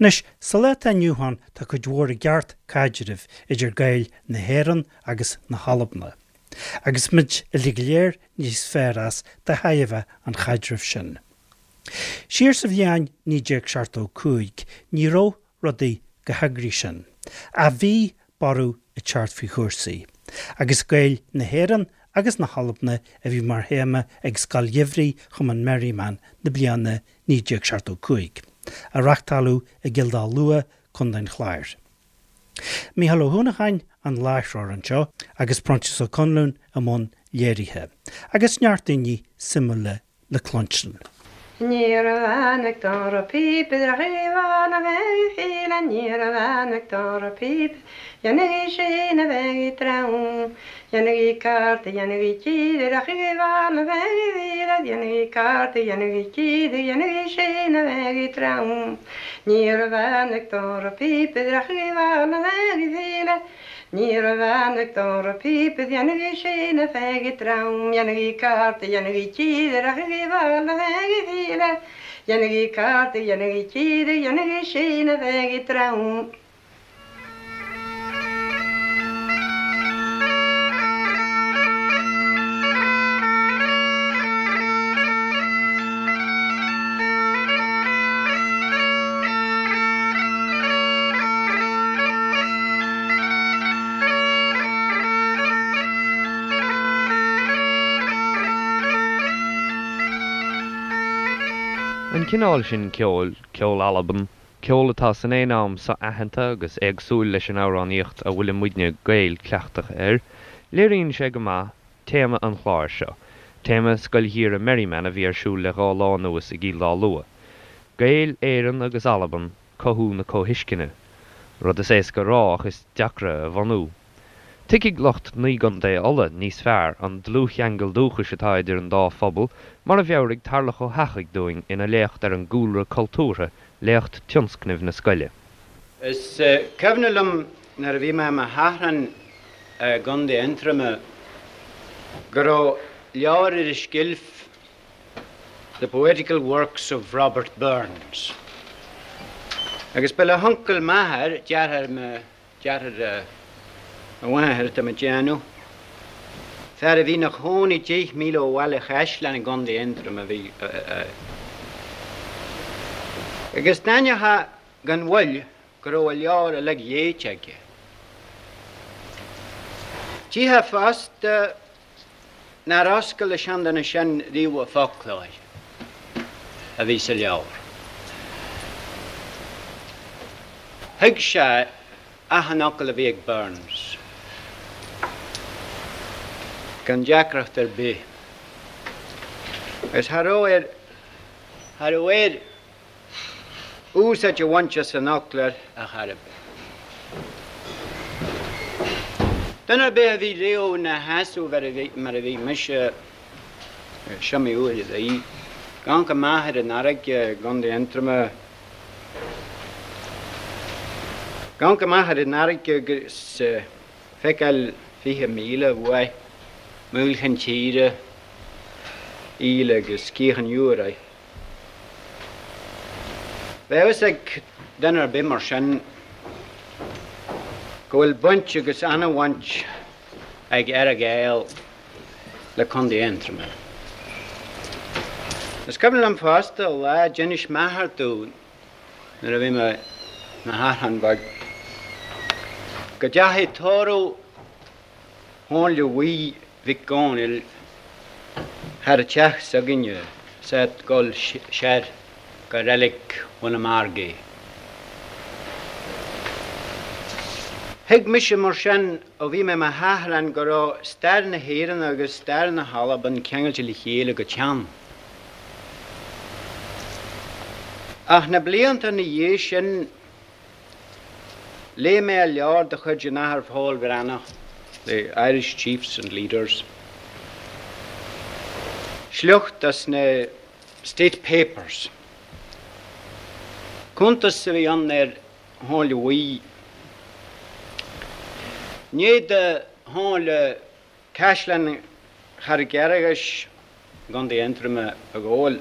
Anois, sa lá atá inniu ann tá cuid mhór i gceart caidrimh idir Gaeil na hÉireann agus na hAlbana. Agus muid uilig go léir níos fearr as de thairbhe an chaidrimh sin. Siar sa bhliain 1975 ní raibh rudaí chomh heagraithe sin, ach bhí borradh ag teacht faoi chúrsaí, agus Gaeil na hÉireann agus na hAlbana a bhí mar théama ag Scoil Gheimhridh Chumann Merriman na bliana 1975, a reachtáladh i gCill Dá Lua, Co. an Chláir. Mícheál Ó hUanacháin an láithreoir anseo agus Proinsias Ó Conluain i mbun léirithe, agus neart daoine suimiúla le cluinstin. Ní raibh ann ag dora píopa de Chaomhán a bheith ag file Ní raibh ann ag dora píopa Dhéanaigí sin a bheith ag trom Dhéanaigí cárta Dhéanaigí cíde de Chaomhán a bheith ag file Dhéanaigí cárta Dhéanaigí cíde Dhéanaigí sin a bheith ag trom Ní raibh ann ag dora píopa de Chaomhán a bheith ag file Ní raibh ann ag dora píopa dhéanaigí sin a bheith ag trom dhéanaigí cárta dhéanaigí cíde rachaigí bhal a bheith ag file dhéanaigí cárta dhéanaigí cíde dhéanaigí sin a bheith ag trom. An cineál sin ceoil, ceol Alban, ceol atá san aon am so-aitheanta agus éagsúil leis an amhránaíocht a bhfuilimidne Gaeil cleachtaithe air, léiríonn sé go maith téama an chláir seo, téama Scoil Gheimhridh Merriman a bhí ar siúl le dhá lá anuas i gCill Dá Lua. Gaeil Éireann agus Alban, cothú na comhthuisceana. Rud is éasca a rá ach is deacra a bhunú. Tuigfidh lucht Naoi gContae Uladh níos fearr an dlúthcheangal dúchais atá idir an dá phobal mar a mheabhraigh Tarlach Ó hEachaidh dúinn ina léacht ar an gcúlra cultúrtha, léacht tionscnaimh na scoile. Is cuimhin liom nuair a bhí mé i mo sheachrán i gContae Aontroma go raibh leabhar ar an tseilf The Poetical Works of Robert Burns agus ba le huncail m'athar, deartháir mo deartháir mo mháthar atá mé ag déanamh, fear a bhí ina chónaí 10 míle ó Bhaile Chaisleáin i gContae Aontroma a bhí agus d'aithneofá gan mhoill go raibh an leabhar uilig léite aige. Tchífeá fosta nár oscail an seanduine sin riamh an foclóir a bhí sa leabhar. Thuig sé achan fhocal a bhí ag Burns gan deacracht ar bith. Agus cha raibh air, cha raibh air úsáid a bhaint as an fhoclóir ar chor ar bith. Duine ar bith a bhí riamh ina sheasamh mar a bhí mise, is iomaí uair a bhí, ag amharc amach ar an fharraige i gContae Aontroma, ag amharc amach ar an fharraige agus feiceáil 20 míle uaidh, Maoil Chinn Tíre, Íle agus Cíoch an Iúir. Bheadh a fhios ag duine ar bith mar sin go bhfuil baint agus ana-bhaint ag Earra-Ghael le Contae Aontroma. Is cuimhin liom fosta lá a d'inis m'athair domh nuair a bhí mé i mo sheachrán beag go dteachaigh tórramh Chónaill Bhuí Mhic Dhónaill thar an teach s'againne 's é ag dul soir go reilig Bhun an Mhargaidh. Thuig mise mar sin ó bhí mé i mo sheachrán go raibh stair na hÉireann agus stair na hAlban ceangailte le chéile go teann. Ach na blianta ina dhiaidh sin, Léigh mé leabhar de chuid an Athar Pól Breathnach, The Irish Chiefs and Leaders, sliocht as na State Papers. Cuntas a bhí ann ar Chónaill Bhuí. I ndiaidh do Chónaill Caisleán Charraig Fhearghais i gContae Aontroma a ghabháil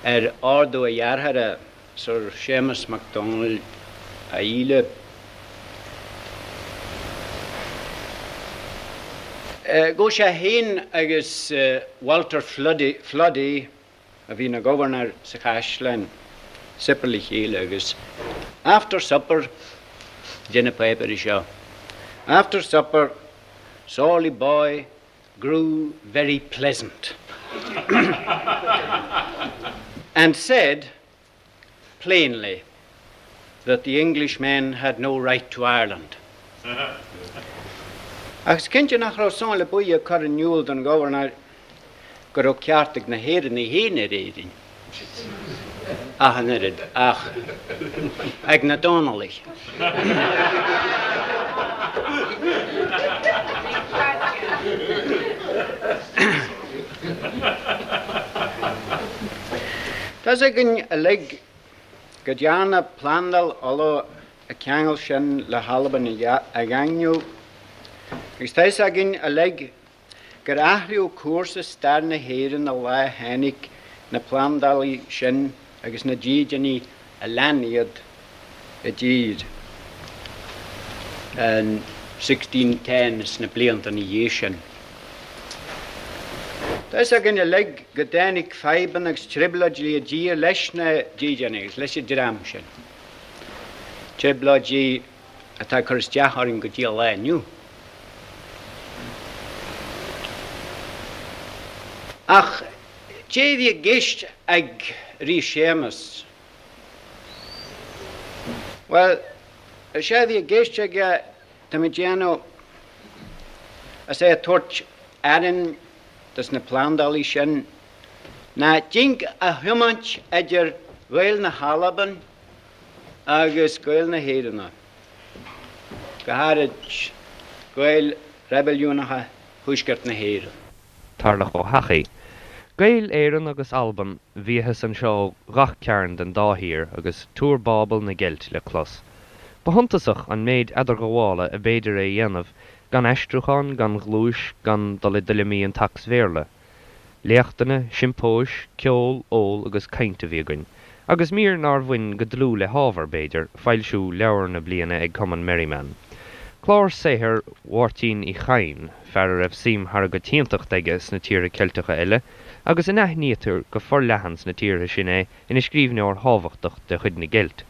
ar ordú a dhearthára. Sir Séamus Mac Dónaill a Íle. Ghabh sé féin agus Walter Floody, a bhí ina ghobharnóir sa chaisleán, suipéar le chéile agus after supper, deir na páipéirí seo, after supper, Sorley Boy grew very pleasant and said plainly that the Englishmen had no right to Ireland. Ach is cinnte nach raibh Somhairle Buí ag cur in iúl don ghobharnóir go raibh ceart ag na hÉireannaigh féin ar Éirinn ach an oiread, ach ag na Dónallaigh. Tá's againn uilig go dtearna Plandáil Uladh an ceangal sin le hAlbain a dhaingniú, agus tá fhios againn uilig gur athraíodh cúrsa stair na hÉireann an lá a tháinig na plandálaithe sin agus na dídeanaithe a lean iad i dtír in 1610 is na blianta ina dhiaidh sin. Tá fhios againn uilig go dtáinig fadhbanna agus trioblóidí i dtír leis na dídeanaithe agus leis an dream sin, trioblóidí atá ag cur isteach orainn go dtí an lá inniu. Ach cé a bhí i gceist ag Rí Séamas? Bhuel, is é a bhí i gceist aige, tá mé ag déanamh, is é ag tabhairt airm dos na plandálaithe sin, ná dinc a thiomáint idir Ghaeil na hAlban agus Gaeil na hÉireann, go háirid Gaeil reibiliúnacha Thuaisceart na hÉireann. Tarlach Ó hEachaidh. Gaeil Éireann agus Alban, bhíothas anseo ó ghach cearn den dá thír agus túr Bábel na gCeilt le clos. Ba shuntasach an méid eadarghabhála ab fhéidir a dhéanamh gan aistriúchán, gan ghluais, gan dul i dtuilleamaí an tSacs-Bhéarla. Léachtanna, siompóis, ceol, ól agus caint a bhí againn. Agus mír nár bhain go dlúth le hábhar, b'fhéidir, foilsiú leabhar na bliana ag Cumann Merriman. Clár saothair Mháirtín Uí Chadhain, fear a raibh suim thar an gcoitiantacht aige sna tíortha Ceilteacha eile, agus a n-aithnítear go forleathan sna tíortha sin é ina scríbhneoir thábhachtach de chuid na gCeilt.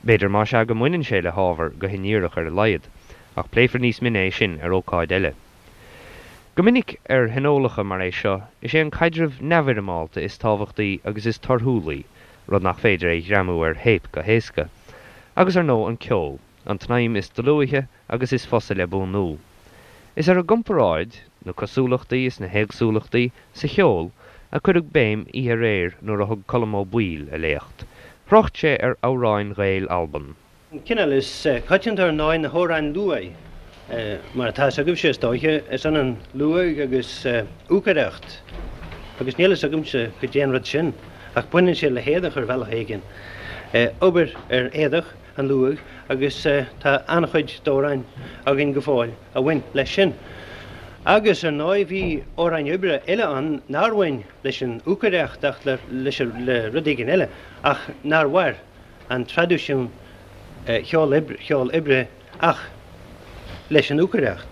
B'fhéidir más ea go mbaineann sé le hábhar, go hindíreach ar a laghad. Ach pléifear níos mine é sin ar ócáid eile. Go minic ar thionólacha mar é seo, is é an caidreamh neamhfhoirmeálta is tábhachtaí agus is torthúlaí, rud nach féidir a ghreamú ar théip go héasca. Agus ar ndóigh an ceol, an tsnaidhm is dlúithe agus is fusa le buanú. Is ar an gcomparáid, na cosúlachtaí is na héagsúlachtaí, sa cheol, a cuireadh béim oíche aréir nuair a thug Colm Ó Baoill a léacht. Thrácht sé ar amhráin Ghaeil Alban. An cineál is coitianta ar ndóigh na hamhráin luaidh. Mar atá fhios agaibhse is dóiche, is ionann luaidh agus úcaireacht. Agus níl fhios agamsa cad é an rud sin, ach baineann sé le héadach ar bhealach éigin. Obair ar éadach, an luaidh, agus tá an-chuid d'amhráin againn go fóill a bhain leis sin. Agus ar ndóigh bhí amhráin oibre eile ann nár bhain leis an úcaireacht ach le rud éigin eile, ach nár mhair. an traidisiún cheol oibre ach leis an úcaireacht.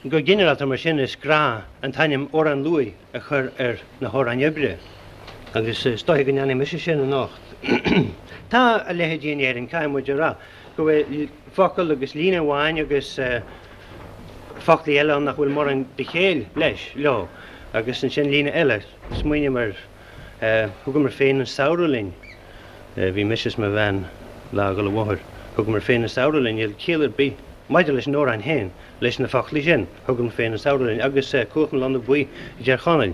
Go ginearálta mar sin is gnách an t-ainm amhrán luaidhe a chur ar na hamhráin oibre agus is dóiche go ndéanfaidh mise sin anocht. Tá a leithéidí in Éirinn, caithfidh muid a rá, go bhfuil focal agus líne amháin agus foclaí eile ann nach bhfuil mórán de chéill leis, leo, agus ansin líne eile. Smaoiním ar Thugamar féin an samhradh linn. Bhí mise is mo bhean lá ag dul an bhóthair. Thugamar féin an samhradh linn. Níl ciall ar bith maidir leis an amhrán féin leis na foclaí sin. Thugamar féin an samhradh linn. Agus Cuach na Lonna Buí i dTír Chonaill,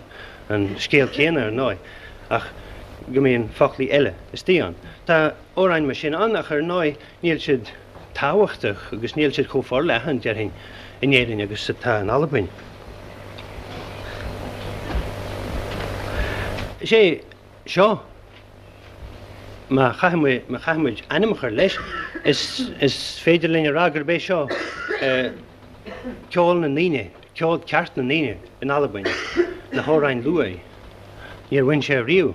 an scéal céanna ar ndóigh, ach go mbíonn foclaí eile istigh ann. Tá amhráin mar sin ann ach ar ndóigh níl siad tábhachtach agus níl siad chomh forleathan, déarfainn, in Éirinn agus atá in Albain. Is é seo, má chaithfidh muid ainm a chur leis, is féidir linn a rá gurb é seo ceol na ndaoine, ceol ceart na ndaoine in Albain, na hamhráin luaidhe. Níor bhain sé riamh.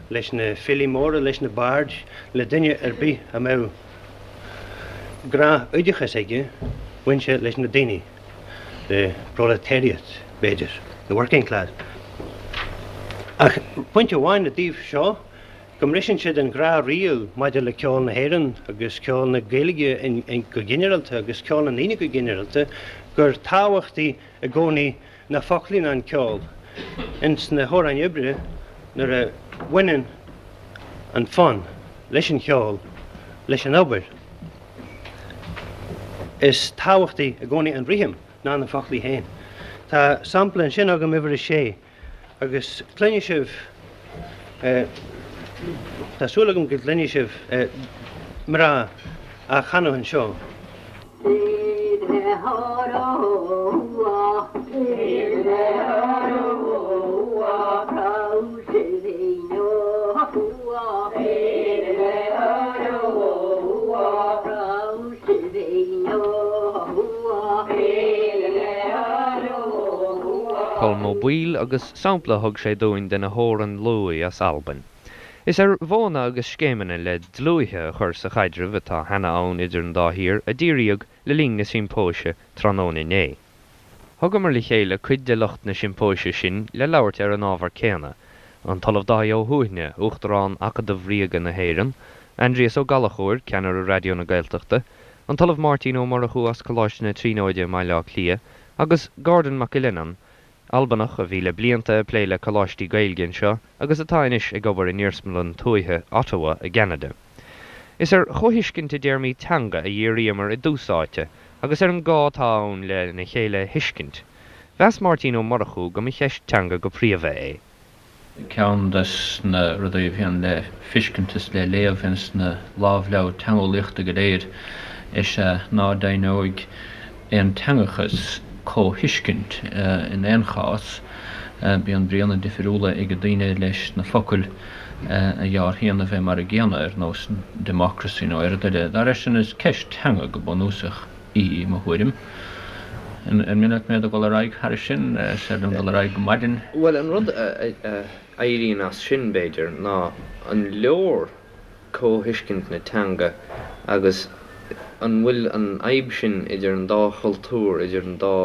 leis na filí móra, leis na baird, le duine ar bith a mbeadh gnáth-oideachas aige, bhain sé leis na daoine, the proletariat, b'fhéidir, the working class. Ach pointe amháin i dtaobh seo, go mbriseann siad an ghnáth-riail maidir le ceol na hÉireann agus ceol na Gaeilge go ginearálta agus ceol na ndaoine go ginearálta, gur tábhachtaí i gcónaí na foclaí ná an ceol. Ins na hamhráin oibre, nuair a bhaineann an fonn leis an cheol, leis an obair, is tábhachtaí i gcónaí an rithim ná na foclaí féin. Tá sampla ansin agam, uimhir a sé. Agus cluinfidh sibh, tá súil agam go gcluinfidh sibh mná á chanadh anseo. Colm Ó Baoill agus sampla a thug sé dúinn de na hamhráin luaidhe as Albain. Is ar mhodhanna agus scéimeanna le dlúithe a chur sa chaidreamh atá cheana ann idir an dá thír a díríodh le linn na siompóise tráthnóna inné. Thugamar le chéile cuid de lucht na siompóise sin le labhairt ar an ábhar céanna, an tOllamh Dáithí Ó hUaithne, Uachtarán Acadamh Ríoga na hÉireann, Aindrias Ó Gallchóir, Ceannaire Raidió na Gaeltachta, an tOllamh Máirtín Ó Murchú as Coláiste na Tríonóide i mBaile Átha Cliath, agus Gordon McAleenan, Albanach a bhí le blianta ag plé le coláistí Gaeilge anseo agus atá anois ag obair in iarsmalann tuaithe Ottawa i gCeanada. Is ar chomhthuiscint i dtéarmaí teanga a dhíríomar i dtús áite agus ar an gá atá ann lena chéile a thuiscint. Mheas Máirtín Ó Murchú go mba cheist teanga go príomha é. Ceann des na rudaí a bhíonn le feiscint is le léamh ins na lámhleabhair teangeolaíochta go léir is ea ná deimhneoidh aonteangachas comhthuiscint in aon chás. Bíonn bríonna difiriúla ag daoine leis na focail a dhealraíonn a bheith mar a gcéanna, ar nós democracy nó aon rud eile. Dá réir sin, is ceist teanga go bunúsach í, i mo thuairim. An mian leat mé do dhul ar aghaidh thairis sin? Is féidir liom dul ar aghaidh go maidin. Bhuel, an rud a éiríonn as sin, b'fhéidir, ná an leor comhthuiscint na teanga agus an bhfuil an fhadhb sin idir an dá chultúr, idir an dá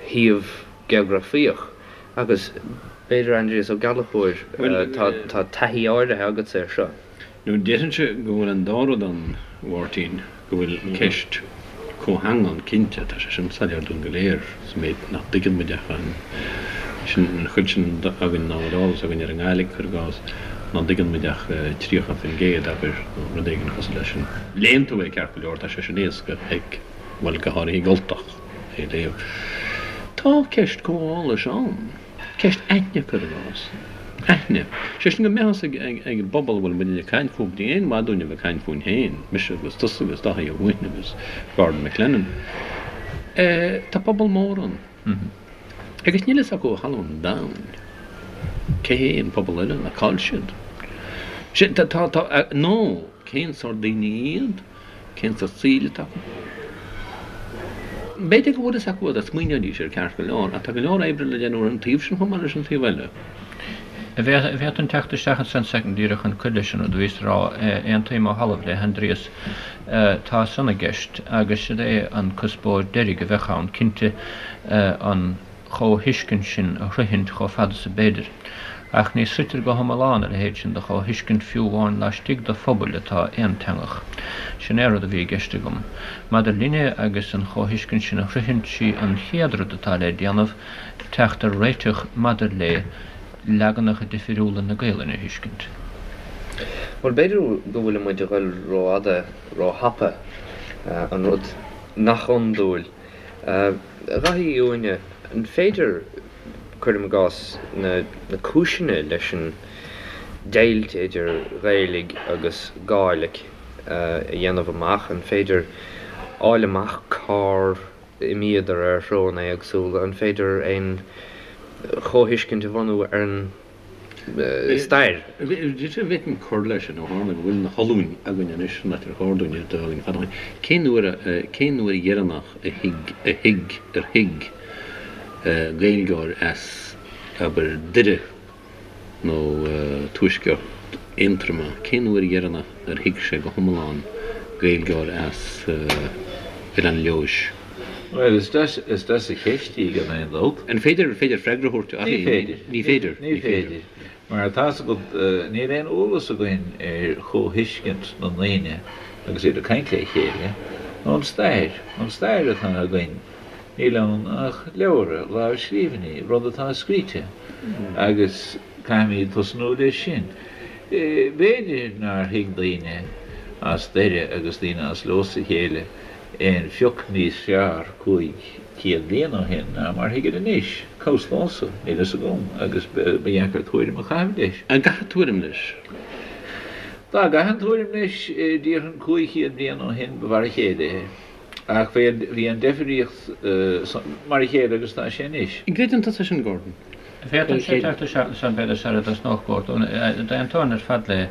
shuíomh geografaíoch agus b'fhéidir Aindrias Ó Gallchóir, tá taithí áirithe agatsa air seo. Nó déarfainnse go bhfuil an dá rud ann, a Mháirtín, go bhfuil ceist comhtheanga ann cinnte, tá sé sin soiléir dúinn go léir, sa méid nach dtuigeann muid ach an, sin, an chuid sin againn ná bhfuil eolas againn ar an nGàidhlig, cuir i gcás, ná dtuigeann muid ach 30%, abair, nó rud éigin cosúil leis sin. Léann tú é ceart go leor, tá sé sin éasca ag, bhuel, go háirithe ag Ultach. é léamh. Tá ceist comhgháis ann. Ceist aithne, cuir i gcás. Aithne. Sé sin go mbeadh fhios ag an bpobal a bhfuil muidne ag caint fúthu, ní aon mhaith dúinn a bheith ag caint fúinn féin, mise agus tusa agus Dáithí Ó hUaithne agus Gordon McLennan. Tá pobal mór ann. Agus níl fhios acu ó thalamh an domhain cé hé an pobal eile ná cá'il siad. Sé, tá, tá, tá, nó cén sórt daoine iad? Cén sórt saoil atá acu? B'fhéidir go bhfuil fhios acu dá smaoineoidís air ceart go leor, ach tá go leor oibre le déanamh ar an taobh sin chomh maith leis an taobh eile. An bhféadfainn teacht isteach ansan soicind díreach chun cur leis an rud a bhíos a rá. Aontaím ó thalamh le hAindrias. Tá san i gceist agus siod é an cuspóir deiridh a bheadh ann, cinnte, an chomhthuiscint sin a shroichint chomh fada is ab fhéidir. Ach ní sroichtear go hiomlán a leithéid sin de chomhthuiscint fiú amháin laistigh de phobail atá aonteangach. Sin é an rud a bhí i gceist agam. Maidir linne agus an chomhthuiscint sin a shroichint, sí an chéad rud atá le déanamh teacht ar réiteach maidir le leaganacha difiriúla na Gaelainne a thuiscint. Bhuel, b'fhéidir go bhfuil muid a ghoil rófhada, róthapa, an rud nach iondúil. A Dhaithí Uí Uaithne, an féidir, cuirim i gcás, na cúiseanna leis an deighilt idir Ghaeilig agus Gàidhlig a dhéanamh amach? An féidir fháil amach cár imíodar ar threonna éagsúla? An féidir aon chomhthuiscint a bhunú ar an stair. Bhféadfainn cur leis sin, ó tharla go bhfuil na hOllúin againn anois, san áit ar chóir dúinn iad a bheith againn fada ó shin. Cén uair a, cén uair dheireanach a thuig, a thuig, ar thuig Gaeilgeoir as, abair, Doire. nó tuaisceart Aontroma, cén uair dheireanach ar thuig sé go hiomlán Gaeilgeoir as Oileán Leodhais? Bhuel, is deas, is deas an cheist í gan aon dabht. An féidir, féidir freagra a thabhairt uirthi? Ní féidir. Ní féidir. Ní féidir. Mar tá's agat, níl aon eolas againn ar chomhthuiscint na ndaoine agus iad ag caint le chéile, ón stair. An stair atá againn, níl ann ach leabhra, lámhscríbhinní, rud atá scríte, agus caithfimid tosnú leis sin. B'fhéidir nár thuig daoine as Doire agus daoine as Leodhas a chéile aon phioc níos fearr 500 bliain ó shin ná mar thuigid anois. Cá bhfios domhsa, níl fhios agam, agus ba dheacair tuairim a chaitheamh leis. An gcaithfeá tuairim leis? Dá gcaithfinn tuairim leis, déarfainn 500 bliain ó shin ba mhar a chéile é. Ach bhí an deifríocht mar a chéile agus atá sé anois. An gcreideann tusa sin, Gordon? Féadfaimse teacht isteach ansan b'fhéidir sara dtosnódh Gordon. D'aontóinn ar fad le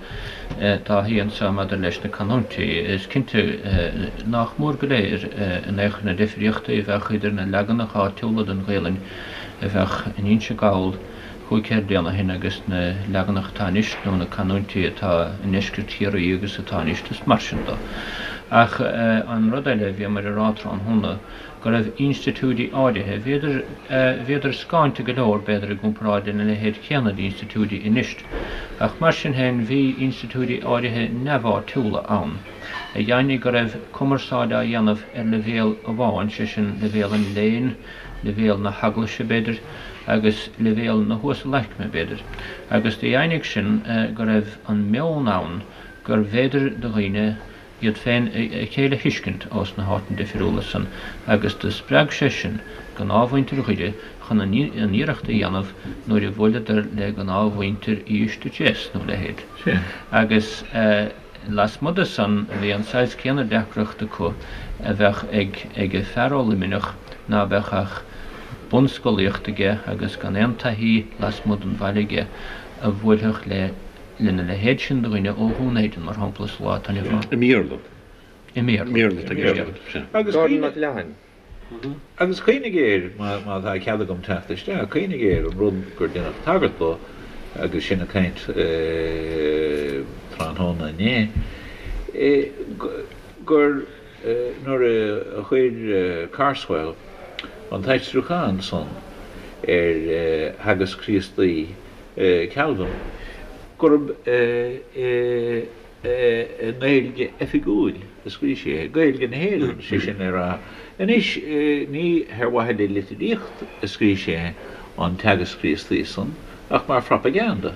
Dáithí anso maidir leis na canúintí. Is cinnte nách mór go léir in aon chor na deifríochtaí a bheadh idir na leaganacha áitiúla den Ghaelainn a bheadh in Inse Gall 500 bliain ó shin agus na leaganacha atá anois nó na canúintí atá i ndeisceart Chiarraí agus atá anois is mar sin do. Ach an rud eile a bhíomair a rá tráthnóna, go raibh institiúidí áirithe, bhíodar, bhíodar scáinte go leor, b'fhéidir, i gcomparáid lena leithéid céanna d'institiúidí anois, ach mar sin féin bhí institiúidí áirithe neamháitiúla ann, a dheimhnigh go raibh cumarsáid á dhéanamh ar leibhéal amháin, sé sin, leibhéal an léinn, leibhéal na heaglaise, b'fhéidir, agus leibhéal na huasalaicme, b'fhéidir, agus do dheimhnigh sin go raibh an meon ann gurbh fhéidir do dhaoine iad féin a chéile a thuiscint ós na háiteanna difriúla san agus do spreag sé sin gnáthmhuintir Dhoire chun an iarracht a dhéanamh nuair a bhuaileadar le gnáthmhuintir Uibhist a Deas nó a leithéid. Agus lasmuigh de san bhí an saghas céanna deacracht acu a bheadh ag ag fear ó Luimneach ná beadh ach bunscolaíocht aige agus gan aon taithí lasmuigh den bhaile aige a bhuailfeadh le lena leithéid sin de dhuine ó Dhún Éideann, mar shampla, sa lá atá inniu ann. I mBéarla. I mBéarla. I mBéarla atá i gceist agat, sea. Agus Gordon Mac Leathain. Agus cuimhnigh air, má tá cead agam teacht isteach, cuimhnigh air an rud gur deineadh tagairt dó agus sinn ag caint tráthnóna inné, gur nuair a chuir Carswell an t-aistriúchán san ar Theagasc Críostaí Calvin, gurb i nGaeilge oifigiúil a scríobh sé é, Gaeilge na hÉireann, sé sin le rá. Anois, ní ar mhaithe le litríocht a scríobh sé an Teagasc Críostaí san, ach mar phropaganda,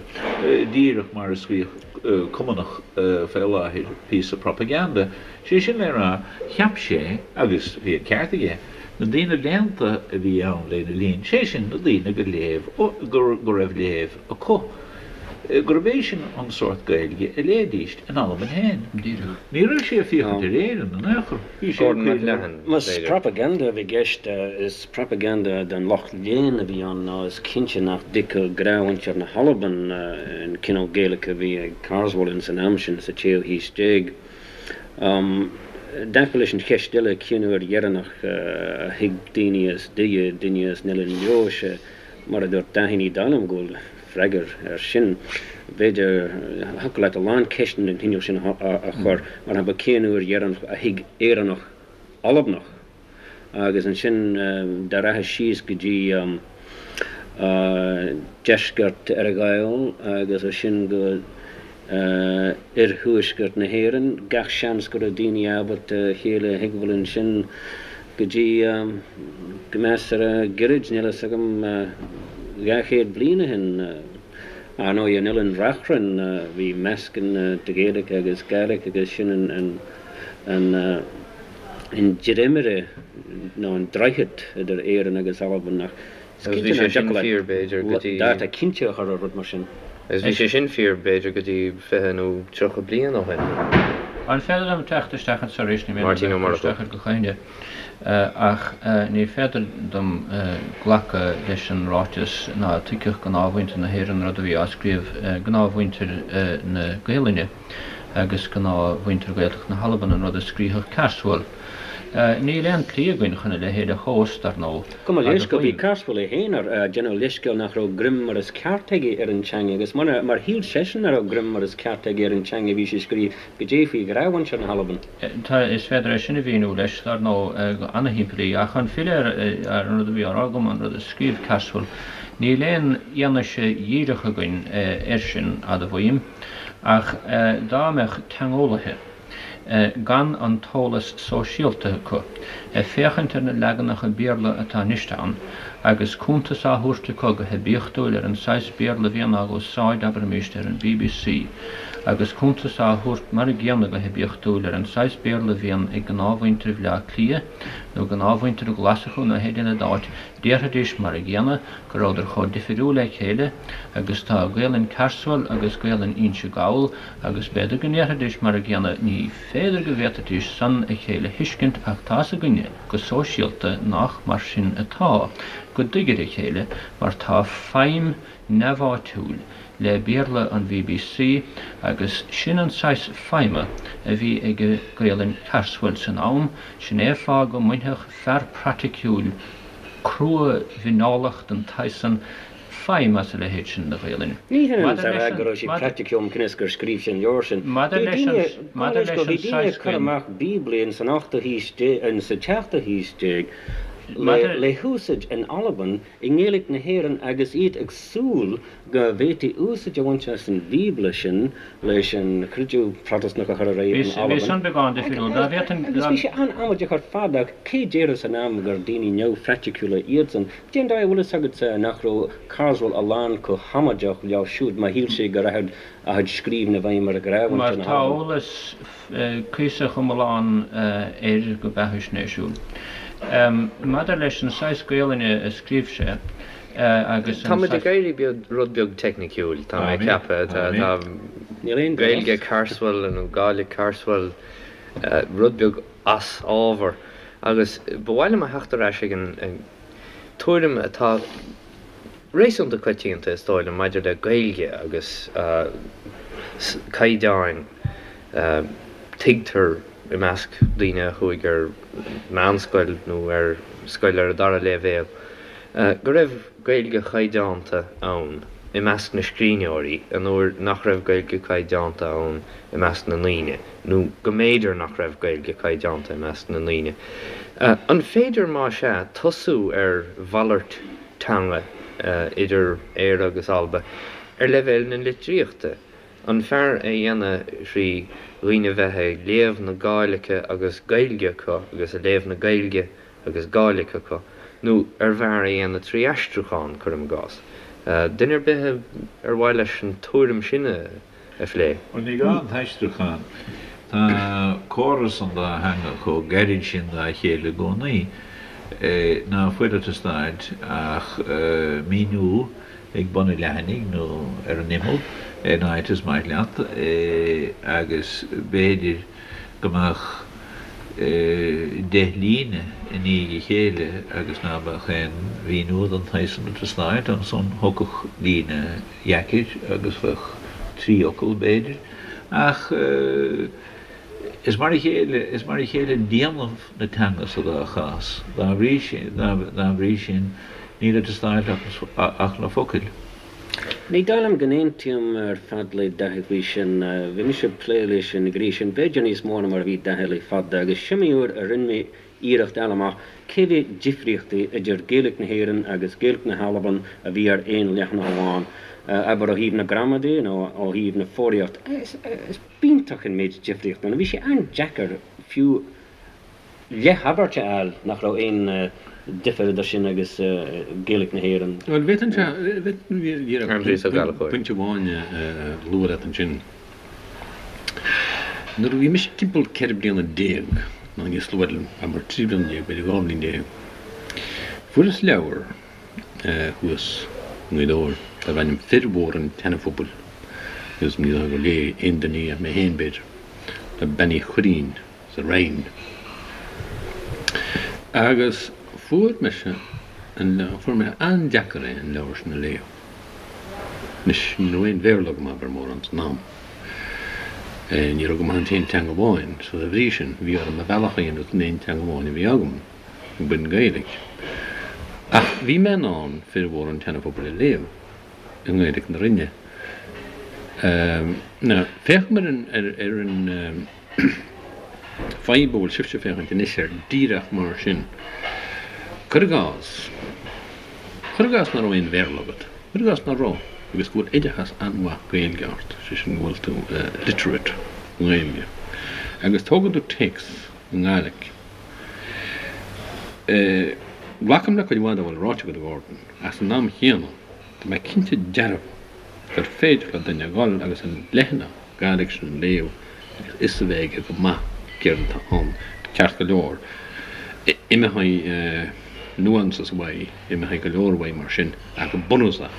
díreach mar a scríobh Cumannach fé láthair píosa propaganda, sé sin le rá, cheap sé, agus bhí an ceart aige, Na daoine léannta a bhí ann lena linn, sé sin, na daoine go léamh, go raibh léamh acu, gurb é sin an sórt Gaeilge a léidís in Albain féin. Ní raibh sé ag féachaint ar Éirinn in aon chor. Bhí sé ag Gordon cuimhneamh. McLennan, Más b'fhéidir. propaganda a bhí i gceist, is propaganda don lucht léinn a bhí ann nó is cinnte nach dtuigfeadh gnáthmhuintir na hAlban an cineál Gaeilge a bhí ag Carswell ins an am sin, sa tséú haois déag. I dtaca leis an cheist eile, cén uair dheireanach a thuig daoine as Doire duine as an Oileán Leodhais? Mar a dúirt Dáithí, ní dóigh liom go bhfuil freagra air sin. B'fhéidir, thiocfadh leat a lán ceisteanna den chineál sin a chur, mar shampla, cén uair dheireanach a thuig Éireannach Albanach? Agus ansin dá rachfá síos go dtí deisceart Earra-Ghall agus as sin go oirthuaisceart na hÉireann, gach seans go raibh daoine ábalta a chéile a thuigbheáil ansin go dtí go measartha gairid, níl a fhios agam, 200 bliain ó shin. Ar ndóigh, in Oileán Reachrann bhí meascán de Ghaeilge agus Gàidhlig agus sin an an dréimire nó an droichead idir Éirinn agus Albain ach is Agus bhí cinnte sé nach sin dtiocfadh fíor, b'fhéidir, go leat dtí. dáta cinnte a chur ar rud mar sin. Agus bhí sé sin fíor, b'fhéidir, go dtí 20 nó 30 bliain ó shin. An féidir liom teacht isteach anseo arís? Ní mian liom Máirtín Ó bheith ag cur Murchú. isteach ar do chuimhne, ach ní féidir dom glacadh leis an ráiteas ná tuigfeadh gnáthmhuintir na hÉireann rud a bhí á scríobh, gnáthmhuintir na Gaelainne. agus gnáthmhuintir Ghaeltacht na hAlban an rud a scríobhadh Carswell. Níl aon tslí againn chun a leithéid a thomhas, dar ndóigh, Gabh mo leithscéal, bhí Carswell é féin ag déanamh leithscéal nach raibh greim mar is ceart aige ar an teanga agus mar shíl seisean nach raibh greim mar is ceart aige ar an teanga bhí sé ag scríobh goidé faoi ghnáthmhuintir na hAlban. Tá, is féidir é sin a mhíniú leis, dar ndóigh, go ana-shimplí, ach chun filleadh ar an rud a bhí á rá agam, an rud a scríobh Carswell, níl aon fhianaise dhíreach againn air sin, admhaím, ach dá mbeadh teangeolaithe, gan an t-eolas sóisialta acu, ag féachaint ar na leaganacha Béarla atá anois ann, agus cuntas á thabhairt acu go hoibiachtúil ar an saghas Béarla a bhíonn á úsáid, abraimis, ar an bbc, agus cuntas á thabhairt mar a gcéanna go hoibiachtúil ar an saghas Béarla a bhíonn ag gnáthmhuintir Bhleá Cliath, nó gnáthmhuintir Ghlaschú nó pé duine d'áit, déarfaidís mar a gcéanna go rabhadar chomh difiriúil le chéile agus tá Gaelainn Carswell agus Gaelainn Inse Gall, Agus b'fhéidir go ndéarfaidís mar a gcéanna, ní féidir go bhféadfaidís san a chéile thuiscint ach tá's againne go sóisialta nách mar sin atá, go dtuigid a chéile mar tá feidhm neamháitiúil le Béarla an bbc agus sin an saghas feidhme a bhí ag Gaelainn Carswell san am, sin é fáth go mbainfeadh fear praiticiúil crua-mhineálach den tsaghas san feidhm as a leithéid sin de Ghaelainn. Ní hionann is a rá go raibh sé praiticiúil cionn is gur scríobh sé an leabhar sin. Bhí daoine, maidir leis, bhí daoine ag cur amach Bíoblaí in san ochtú haois déag, sa tseachtú haois déag le húsáid in Albain i nGaeilge na hÉireann agus iad ag súil go bhféadfaí úsáid a bhaint as an Bhíobla sin leis an chreideamh Protastúnach a chur ar aghaidh in Albain. Bhí san beagán difriúil. Dá bhféadfainn. Agus bhí sé an-amaideach ar fad ach cé déarfadh san am gur daoine neamhphraiticiúla iadsan? Cén dóigh a bhfuil fhios agatsa nach raibh Carswell a lán chomh hamaideach leo siúd má shíl sé go rachadh a chuid scríbhinn i bhfeidhm ar ghnáthmhuintir Mar na tá hAlban? eolas cuíosach iomlán air go beathaisnéisiúil. Maidir leis an saghas Gaolainne a scríobh sé agus Tá an muid ag saghas. éirí rud beag teicniciúil, tá mé ag ceapadh. Tá Gaeilge Carswell nó Gàidhlig Carswell rud beag as ábhar agus ba mhaith liom a theacht ar ais ag an tuairim atá réasúnta coitianta, is dóigh liom, maidir le Gaeilge agus caighdeáin. Tuigtear i measc daoine a chuaigh ar meánscoil nó ar scoil ar an dara léibhéal go raibh Gaeilge chaighdeánta ann i measc na scríbhneoirí an uair nach raibh Gaeilge caighdeánta ann i measc na ndaoine, nó go mb'fhéidir nach raibh Gaeilge caighdeánta i measc na ndaoine. An féidir, más ea, tosú ar mhalairt teanga idir Éire agus Alba ar leibhéal na litríochta? An fearr é a dhéanamh thrí dhaoine bheith ag léamh na Gàidhlige agus Gaeilge acu agus ag léamh na Gaeilge agus Gàidhlig acu, nó ar bhfearr é a dhéanamh trí aistriúchán, cuirim i gcás. Duine ar bith ar mhaith leis an tuairim sin a phlé? Bhuel, ní gá an t-aistriúchán. Tá córas an dá theanga chomh gairid sin dá chéile i gcónaí ná fuil ag teastáilt ach míniú ag bun an leathanaigh nó ar an imeall, in áit is maith leat, agus b'fhéidir go mbeadh deich líne i ndiaidh a chéile agus ná beadh aon mhíniú den tsaghas san ag teastáilt, ansan thiocfadh líne dheacair agus bheadh trí fhocal, b'fhéidir. Ach is mar a chéile, is mar a chéile déanamh na teanga sa dá chás. Dá bhrí sin, dá bhrí sin, níl ag teastáilt ach na focail. Ní dóigh liom go n-aontaím ar fad le Daithí faoi sin. Bhí mise ag plé leis an ghné sin b'fhéidir níos mó ná mar a bhí Daithí le fada agus s'iomaí uair a rinne mé iarracht a fháil amach cé mhéad difríochtaí idir Gaeilge na hÉireann agus Gaeilge na hAlban a bhí ar aon leathanach amháin, abair ó thaobh na gramadaí nó ó thaobh na foghraíochta. Is b'iontach an méid difríochta ann. Bhí sé an-deacair fiú leathabairt a fháil nach raibh aon difear idir sin agus Gaeilge na hÉireann. Bhuel, bhféadfainn díreach pointe amháin a lua leat ansin. Nuair a bhí mise timpeall 14 bliana, nó níos luaithe, abair 13 bliana, b'fhéidir 12 bhliain, fuaireas leabhar thuas i nGaoth Dobhair darbh ainm Fir Mhóra an tSeana-Phobail agus ní dóigh gur léigh aon duine í ach mé féin, b'fhéidir, le Bean Uí Chuirrín. sa Rinn. Agus fuair mise an leabhar, fuair mé an-deacair é an leabhar sin a léamh. Anois, ní raibh aon Bhéarla agam abair mórán san am. Ní raibh agam ach an t-aon teanga amháin, so dá bhrí sin, bhí orm mo bhealach a dhéanamh san aon teanga amháin a bhí agam, b'in Gaeilge. Ach bhí mé in ann formhór an tSeana-Phobail a léamh i nGaeilge na Rinne. Now, féachaim ar an, ar an fadhb a bhfuil sibhse ag féachaint anois air díreach mar sin. Cuir i gcás, cuir i gcás nach raibh aon Bhéarla agat, cuir i gcás nach raibh, agus go bhfuil oideachas an-mhaith Gaeilge ort, sé sin go bhfuil tú literate i nGaeilge, agus tógann tú téacs i nGàidhlig. Glacaim le cuid mhaith dá bhfuil ráite agat, a Ghordon, ach san am chéanna, tá mé cinnte dearfa gur féidir le duine a dhul agus an leathanach Gàidhlig sin a léamh agus fhios a bheith aige go maith céard atá ann. Ceart go leor, imeoidh nuances uaidh, imeoidh go leor uaidh mar sin, ach go bunúsach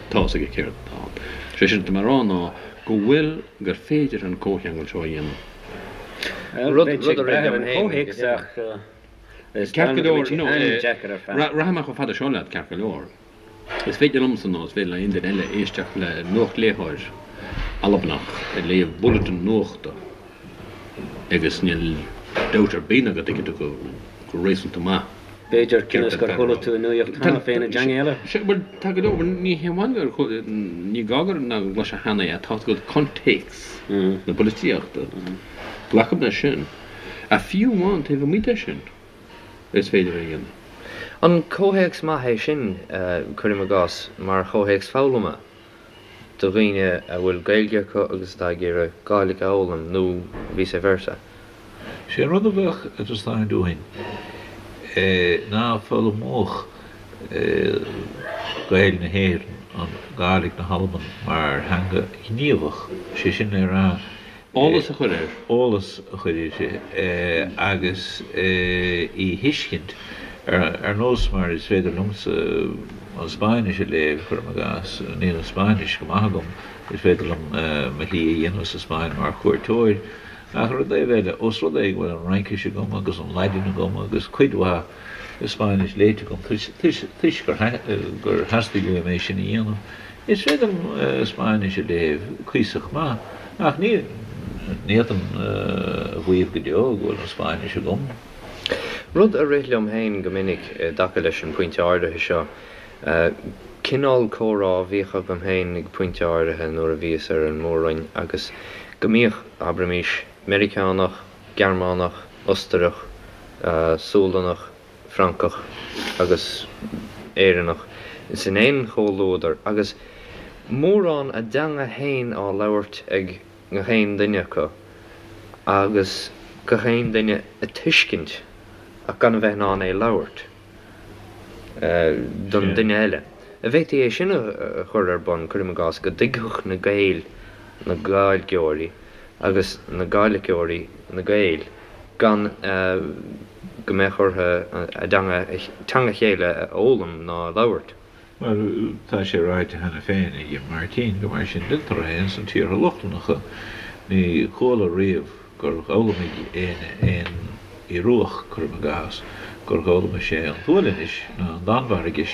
tá fhios aige céard atá ann. Sé sin atá mé a rá ná go bhfuil, gur féidir an comhcheangal seo a dhéanamh. Rud a rith liom féin. Ceart go leor, no, rachaidh mé chomh fada seo leat, ceart go leor. Is féidir liomsa nó is féidir le aon duine eile éisteacht le nuachtléitheoir Albanach ag léamh bulletin nuachta agus níl dabht ar bith ná go dtuigfidh tú go réasúnta maith B'fhéidir, cionn is gur chuala tú an nuaíocht cheana féin i dteanga eile. Sea, bhuel, tá go leor, ní hé amháin gur, ní gá gur ná go gcloisfeá cheana é, tá agat contéacs na polaitíochta. Glacaim leis sin. Ach fiú amháin taobh amuigh de sin, is féidir é a dhéanamh. An comhthéacs maith é sin, cuirim i gcás, mar chomhthéacs foghlama do dhaoine a bhfuil Gaeilge acu agus atá ag iarraidh Gàidhlig a fhoghlaim, nó vice versa? Sé an rud a bheadh ag teastáint uainn ná foghlaimeodh Gaeil na hÉireann an Gàidhlig na hAlban mar theanga ghníomhach, sé sin le rá, Eolas a chur air. Eolas a chur uirthi agus í a thuiscint, ar nós mar is féidir liomsa an Spáinnis a léamh, cuirim i gcás. Níl an Spáinnis go maith agam, is féidir liom mo shlí a dhéanamh sa Spáinn mar chuairteoir, ach ar an dtaobh eile, ós rud é go bhfuil an Fhraincis agam agus an Laidin agam agus cuid mhaith Spáinnis léite agam toisc gur theastaigh uaim é sin a dhéanamh, Is féidir liom Spáinnis a léamh cuíosach maith, ach ní fhéadfainn a mhaíomh go deo go bhfuil an Spáinnis agam. Rud a rith liom féin go minic i dtaca leis an bpointe áirithe seo, cineál comhrá a bhíodh agam féin ag pointe áirithe nuair a bhíos ar an Mór-Roinn agus go mbíodh, abraimis, Meiriceánach, Gearmánach, Ostarach, Sualannach, Francach agus Éireannach san aon chomhluadar agus mórán a dteanga fhéin á labhairt ag gach aon duine acu agus gach aon duine a tuiscint ach gan a bheith in ann é labhairt don duine eile. An bhféadfaí é sin a chur ar bun, cuirim i gcás, go dtuigfeadh na Gaeil na Gàidhilgeoirí agus na Gàidhligeoirí na Gaeil gan go mbeadh orthu a dteanga, teanga a chéile a fhoghlaim ná a labhairt. Bhuel, tá sé ráite cheana féin ag Máirtín gur mar sin deintear é ins na tíortha Lochlannacha. Ní chuala riamh gur dh'fhoghlaimigh éinne aon Ioruach, cuirim i gcás, gur dh'fhoghlaimigh sé an tSualainnis ná an Danmhairgis.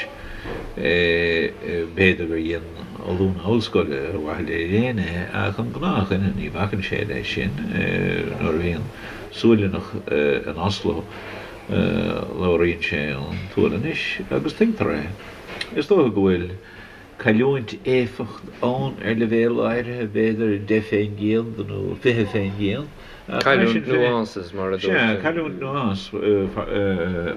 B'fhéidir gur dhein ollúna ollscoile ar mhaithe le léann é, ach an gnáthdhuine ní bhacann sé leis sin. Nuair a bhíonn Sualannach in Oslo labhraíonn sé an tSualainnis agus tuigtear é. Is dócha go bhfuil cailliúint éifeacht ann ar leibhéal áirithe, b'fhéidir 10% nó 20%, ach mar sin féin. Cailliúint nuances, mar a dúirt. Sea, cailliúint nuance,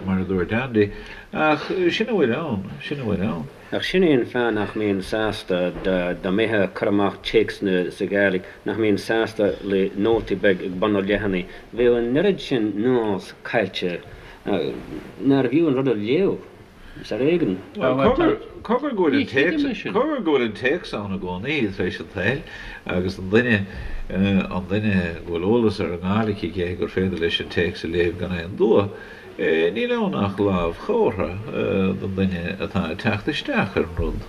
mar a dúirt Andy, ach sin a bhfuil ann, sin a bhfuil ann. Ach sin é an fáth nach mbínn sásta dá mbeifeá ag cur amach téacsanna sa Ghàidhlig, nach mbínn sásta le nótaí beag ag bun an leathanaigh. Bheadh an oiread sin nuance caillte nárbh fhiú an rud a léamh. Is ar éigean. Bhuel, cogar go bhfuil an téacs, cogar go bhfuil an téacs ann i gcónaí tar éis an tsaoil agus an duine, an duine go bhfuil eolas ar an nGàidhlig aige gur féidir leis an téacs a léamh gan aon dua. Níl ann ach lámhchomhartha don duine atá ag teacht isteach ar an rud.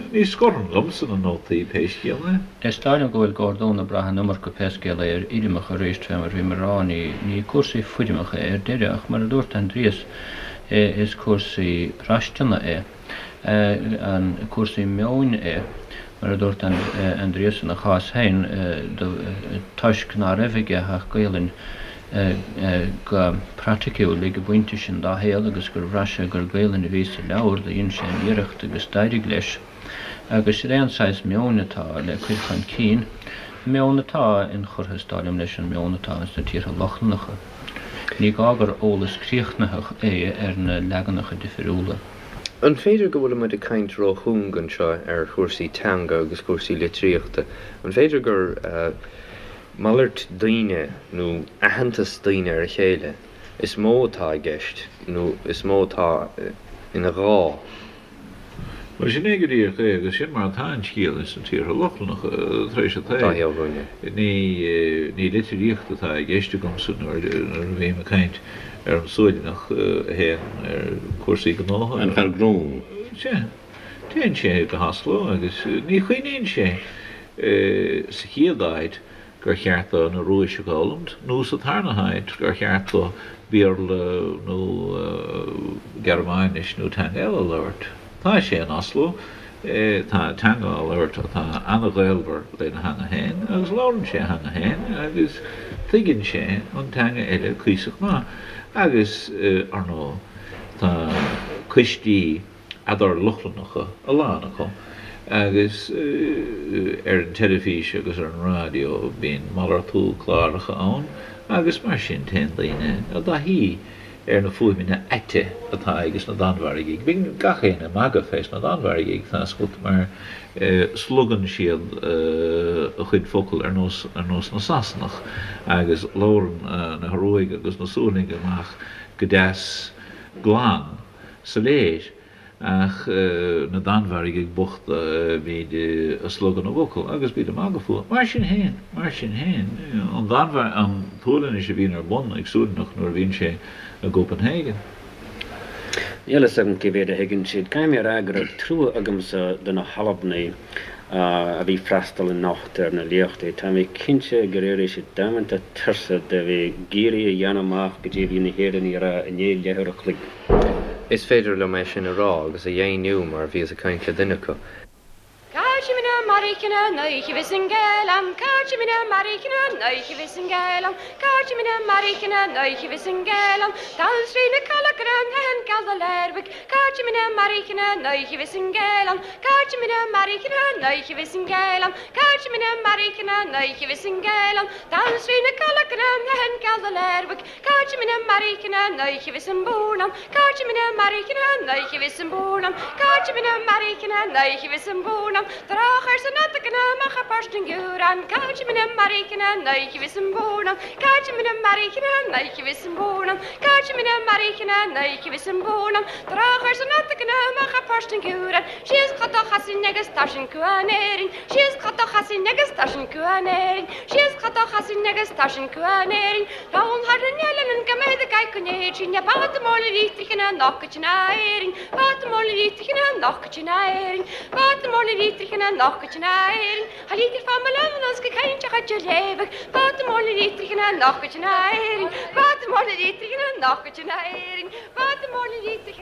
Ní scorfainn liomsa na nótaí pé scéal é. Is dóigh liom go bhfuil Gordún ag brath an iomarca pé scéal é ar fhoirmeacha arís fé mar bhí mé ag rá, ní cúrsaí foirmeacha é ar deireadh ach mar a dúirt Aindrias is cúrsaí braistine é, an cúrsaí meoin é. Mar a dúirt Aindrias, ina chás féin, toisc ná raibh aige ach Gaolainn go praiticiúil ag an bpointe sin dá shaol agus gur bhraith sé gur Gaolainn a bhí sa leabhar, do dhein sé an iarracht agus d'éirigh leis. Agus sin é an saghas meoin atá le cur chun cinn, meon atá inchurtha, is dóigh liom, leis an meon atá ins na tíortha Lochlannacha. Ní gá gur eolas críochnaitheach é ar na leaganacha difiriúla. An féidir go bhfuilimid ag caint róchúng anseo ar chúrsaí teanga agus cúrsaí litríochta? An féidir gur malairt daoine nó aitheantas daoine ar a chéile is mó atá i gceist nó is mó atá ina ghá? Bhuel, sin é go díreach é, agus sin mar atá an scéal ins na tíortha Lochlannacha tar éis an tsaoil. Ní litríocht atá i gceist agamsa nuair a bhím ag caint ar an Sualannach a théann ar cúrsaí gnótha. An fear gnó. Sea. Téann sé go hOslo agus ní chuimhníonn sé sa chéad áit gur cheart dó an Ioruais a fhoghlaimt, nó sa tarna háit, gur cheart dó Béarla nó Gearmáinis nó teanga eile a labhairt. Tá sé in Oslo, tá teanga á labhairt atá an-ghaolmhar lena theanga féin, agus labhrann sé a theanga féin agus tuigeann sé an teanga eile cuíosach maith. Agus, ar ndóigh, tá coistí. eadar-Lochlannacha, a lán acu, agus ar an teilifís agus ar an raidió bíonn malartú cláracha ann agus mar sin téann daoine i dtaithí ar na fuaimeanna aite atá ages na Danmhairgigh. Bíonn gach éinne ag magadh fés na Danmhairgigh, tá 'fhios agat, mar slogann siad a chuid focal ar nós ar nós na Sasanach agus labhrann na hIoruaigh agus na Sualannaigh amach go deas glan. soiléir, ach na Danmhairgigh bochta, bíd ag slogadh na bhfocal agus bíd ag magadh fúthu. Mar sin féin, mar sin féin, an Danmhairg, an tSualainnis a bhíonn ar bun ag Sualannach nuair a bhíonn sé i gCopenhagen. Níl fhios agam cé mhéad a thuigeann siad. Caithfidh mé a rá go raibh trua agamsa do na hAlbanaigh a bhí ag freastal anocht ar na léachtaí. Tá mé cinnte gur éirigh siad damanta tuirseach de bheith ag iarraidh a dhéanamh amach goidé a bhí na hÉireannaigh a rá i ndiaidh leathuair a chloig. Is féidir liom é sin a rá agus a dheimhniú mar bhíos ag caint le duine acu.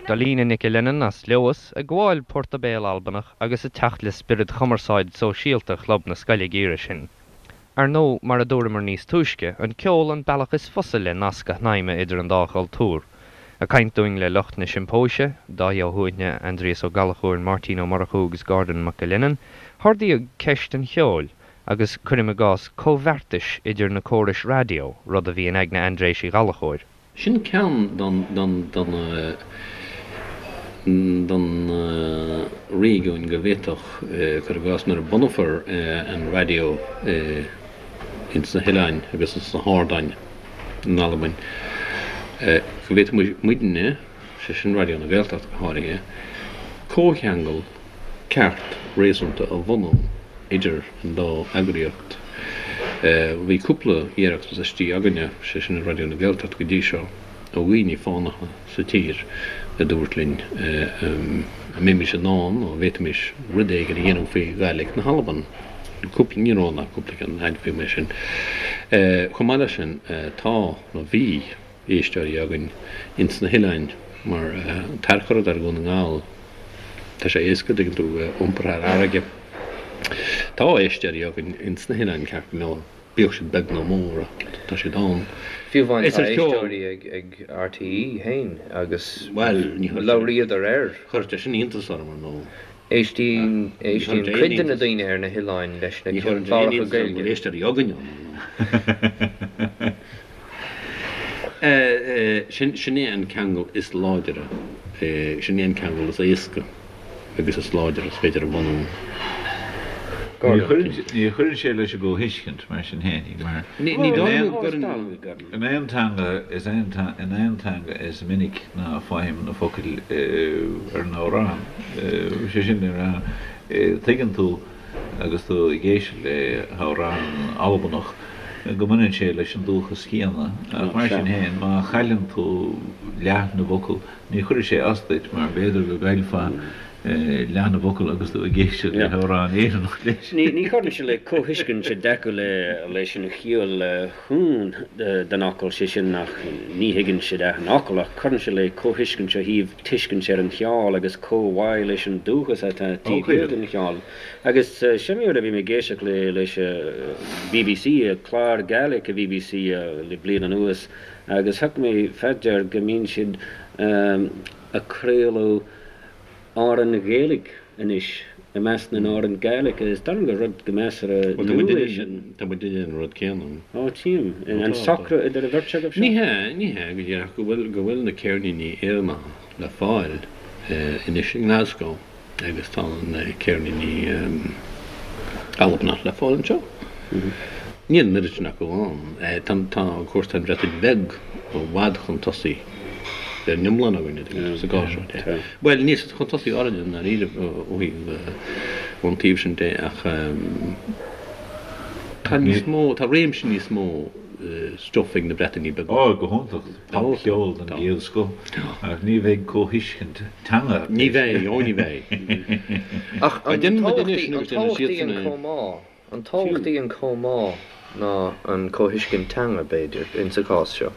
Dolina Nic Lennon as Leodhas ag gabháil port béil Albanach agus ag teacht le spiorad chumarsáid sóisialta Chlub na Scoile ag iarraidh sin. Ar ndóigh, mar a dúramar níos túisce, an ceol an bealach is fusa le nasc a shnaidhmeadh idir an dá chultúr. Ag caint dúinn le lucht na Siompóise, Dáithí Ó hUaithne, Aindrias Ó Gallchóir, Máirtín Ó Murchú agus Gordon McAlennan, hardaíodh ceist an cheoil, agus, cuirim i gcás, comhbheartais idir na córais raidió, rud a bhí in aigne Aindréis Uí Ghallchóir. Sin ceann don don réigiúin go bhféadfadh, cuir i gcás, nuair a bunófar an raidió ins na hoileáin agus ins na hardáin in Albain, go bhféadfadh muidne, sé sin Raidió na Gaeltachta go háirithe, comhcheangal ceart réasúnta a bhunú idir an dá eagraíocht. Bhí cúpla iarracht istigh againne, sé sin i Raidió na Gaeltachta go dtí seo, ó dhaoine fánacha sa tír a dúirt linn an mbeimis in ann nó an bhféadfaimis rud éigin a dhéanamh faoi Ghàidhlig na hAlban. Cúpla, ní raibh ann ach cúpla ceann, admhaím é sin. Chomh maith leis sin, tá, nó bhí, éisteoirí againn ins na hoileáin mar an tarchur atá ar Dhún na nGall. Tá sé éasca, tuigeann tú, iompar thar fharraige. Tá éisteoirí againn ins na hoileáin ceart go leor, bíodh siad beag nó mór ach tá siad ann. Fiú amháin tá éisteoirí ag RTÉ féin agus labhraíodar air. Chuir sé sin iontas orm ar ndóigh. Éistíonn éistíonn cuid de na daoine ar na hoileáin leis na cláracha Gaeilge. Ní chuireann sé aon iontas orm go bhfuil éisteoirí againn ann ar ndóigh. Sin é an ceangal is láidre, sin é an ceangal is éasca agus is láidre is féidir a bhunú. Ní chuireann sé leis an gcomhthuiscint, mar sin fhéinig, mar in aon teanga is in aon teanga is minic ná faighim na focail ar an amhrán. Sé sin le rá, tuigeann tú agus tú ag éisteacht le hamhrán Albanach go mbaineann sé leis an dúchas céanna, ach mar sin féin, má chailleann tú leath na bhfocal, ní chuirfidh sé as duit, mar b'fhéidir go gcaillfeá leath na bhfocal agus tú ag éisteacht le hamhrán Éireannach leis. Ní chuireann sé le comhthuiscint i dtaca leis an chiall chúng den fhocal, sé sin nach ní thuigeann siad achan fhocal, ach cuireann sé le comhthuiscint ó thaobh tuiscint ar an cheol agus comhbhá leis an dúchas atá taobh thiar den cheol. Agus sin rud a bhí mé ag éisteacht le leis BBC, clár Gaelic a BBC le bliain anuas agus thug mé fá dear go mbíonn siad ag craoladh amhráin Ghaeilge anois i measc na n-amhrán Gàidhlig. Is dóigh liom gur rud go measartha nua é sin. Tá muid ag déanamh an rud céanna. Ó, tchím. An socrú idir an bheirt agaibh seo? Ní hea, ní hea go díreach, go bhfuil, go bhfuil na ceirníní Éireannacha le fáil anois i nGlasgow agus tá na ceirníní Albanach le fáil anseo. Níl an oiread sin acu ann. Tá, tá, of course, tá an Bhreatain Bheag i bhfad chun tosaigh ar an iomlán againne sa gcás seo de. Bhuel, níl siad chun tosaigh orainne i ndáiríre ó thaobh ón taobh sin de ach tá níos mó, tá réimse níos mó stuif ag na Breatainí Beaga. Ó, go hiontach, popcheol den gcéad scoth, ach ní bheidh comhthuiscint teanga. Ní bheidh, ó ní bheidh. Ach an tábhachtaí an comhbhá An tábhachtaí an comhbhá ná an comhthuiscint teanga, b'fhéidir, insa chás seo?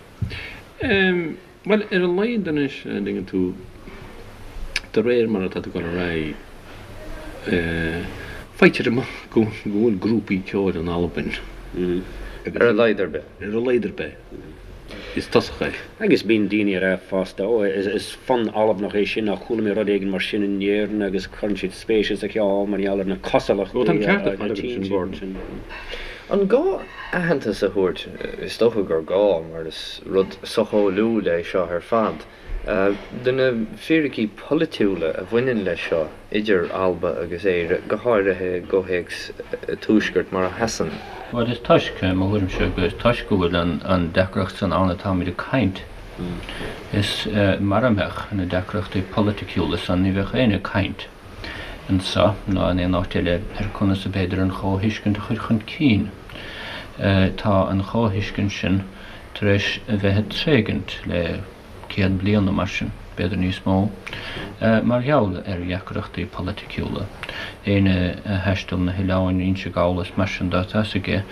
Bhuel, ar a laghad anois, an dtuigeann tú, de réir mar atá tú ag dul ar aghaidh, faightear amach go bhfuil grúpaí ceoil in Albain. Ar a laghad ar bith. Ar a laghad ar bith. Is tosach é. Agus bíonn daoine ag rá fosta, Ó, is fonn Albanach é sin, nó chuala mé rud éigin mar sin in Éirinn agus cuireann siad spéis sa cheol mar gheall ar na cosúlachtaí Ó, tá an ceart ar fad agat ansin, Gordon. An gá aitheantas a thabhairt? Is dócha gur gá, mar is rud socheolaíúil é seo ar fad. Do na fíricí polaitiúla a bhaineann leis seo idir Alba agus Éire, go háirithe i gcomhthéacs an Tuaiscirt mar a sheasann. Bhuel, is toisc, i mo thuairimse, go is toisc go bhfuil an deacracht san ann atáimid ag caint. Is mara mbeadh na deacrachtaí polaiticiúla san ní bheadh éinne ag caint anso ná in aon áit eile ar conas ab fhéidir an chomhthuiscint a chur chun cinn. Tá an chomhthuiscint sin tar éis a bheith ag tréigint le 100 bliain nó mar sin, b'fhéidir níos mó, mar gheall ar dheacrachtaí polaiticiúla. Éinne a thaistil na hoileáin, Inse Gall is mar sin de, tá fhios aige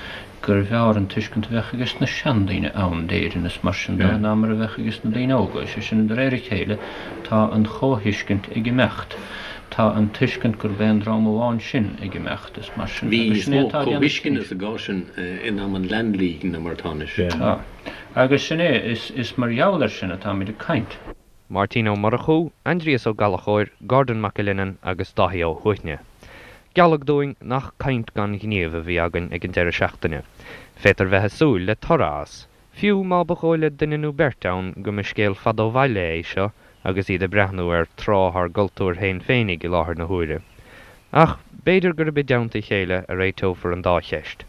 gurbh fhearr an tuiscint a bheadh ages na seandaoine ann d'Éirinn is mar sin de ná mar a bheadh ages na daoine óga. Sé sin, de réir a chéile, tá an chomhthuiscint ag imeacht. Tá an tuiscint gurb aon dream amháin sinn ag imeacht is mar sin Bhí agus níos sin é mó atá á déanamh comhthuisceana anois. sa gcás sin in am an Land League ná mar atá anois. Tá. Agus sin é, is, is mar gheall air sin atáimid ag caint. Máirtín Ó Murchú, Aindrias Ó Gallchóir, Gordon Mac Uilinnean agus Dáithí Ó hUaithne. Gealladh dúinn nach caint gan ghníomh a bhí againn ag an deireadh seachtaine. Féadtar bheith ag súil le toradh as, fiú má ba dhóigh le duine nó beirt ann go mba scéal fada ó bhaile é seo agus iad ag breathnú ar tráth ár gcultúir féin féinig i láthair na huaire. Ach b'fhéidir gurb i dteannta a chéile a réiteofar an dá cheist.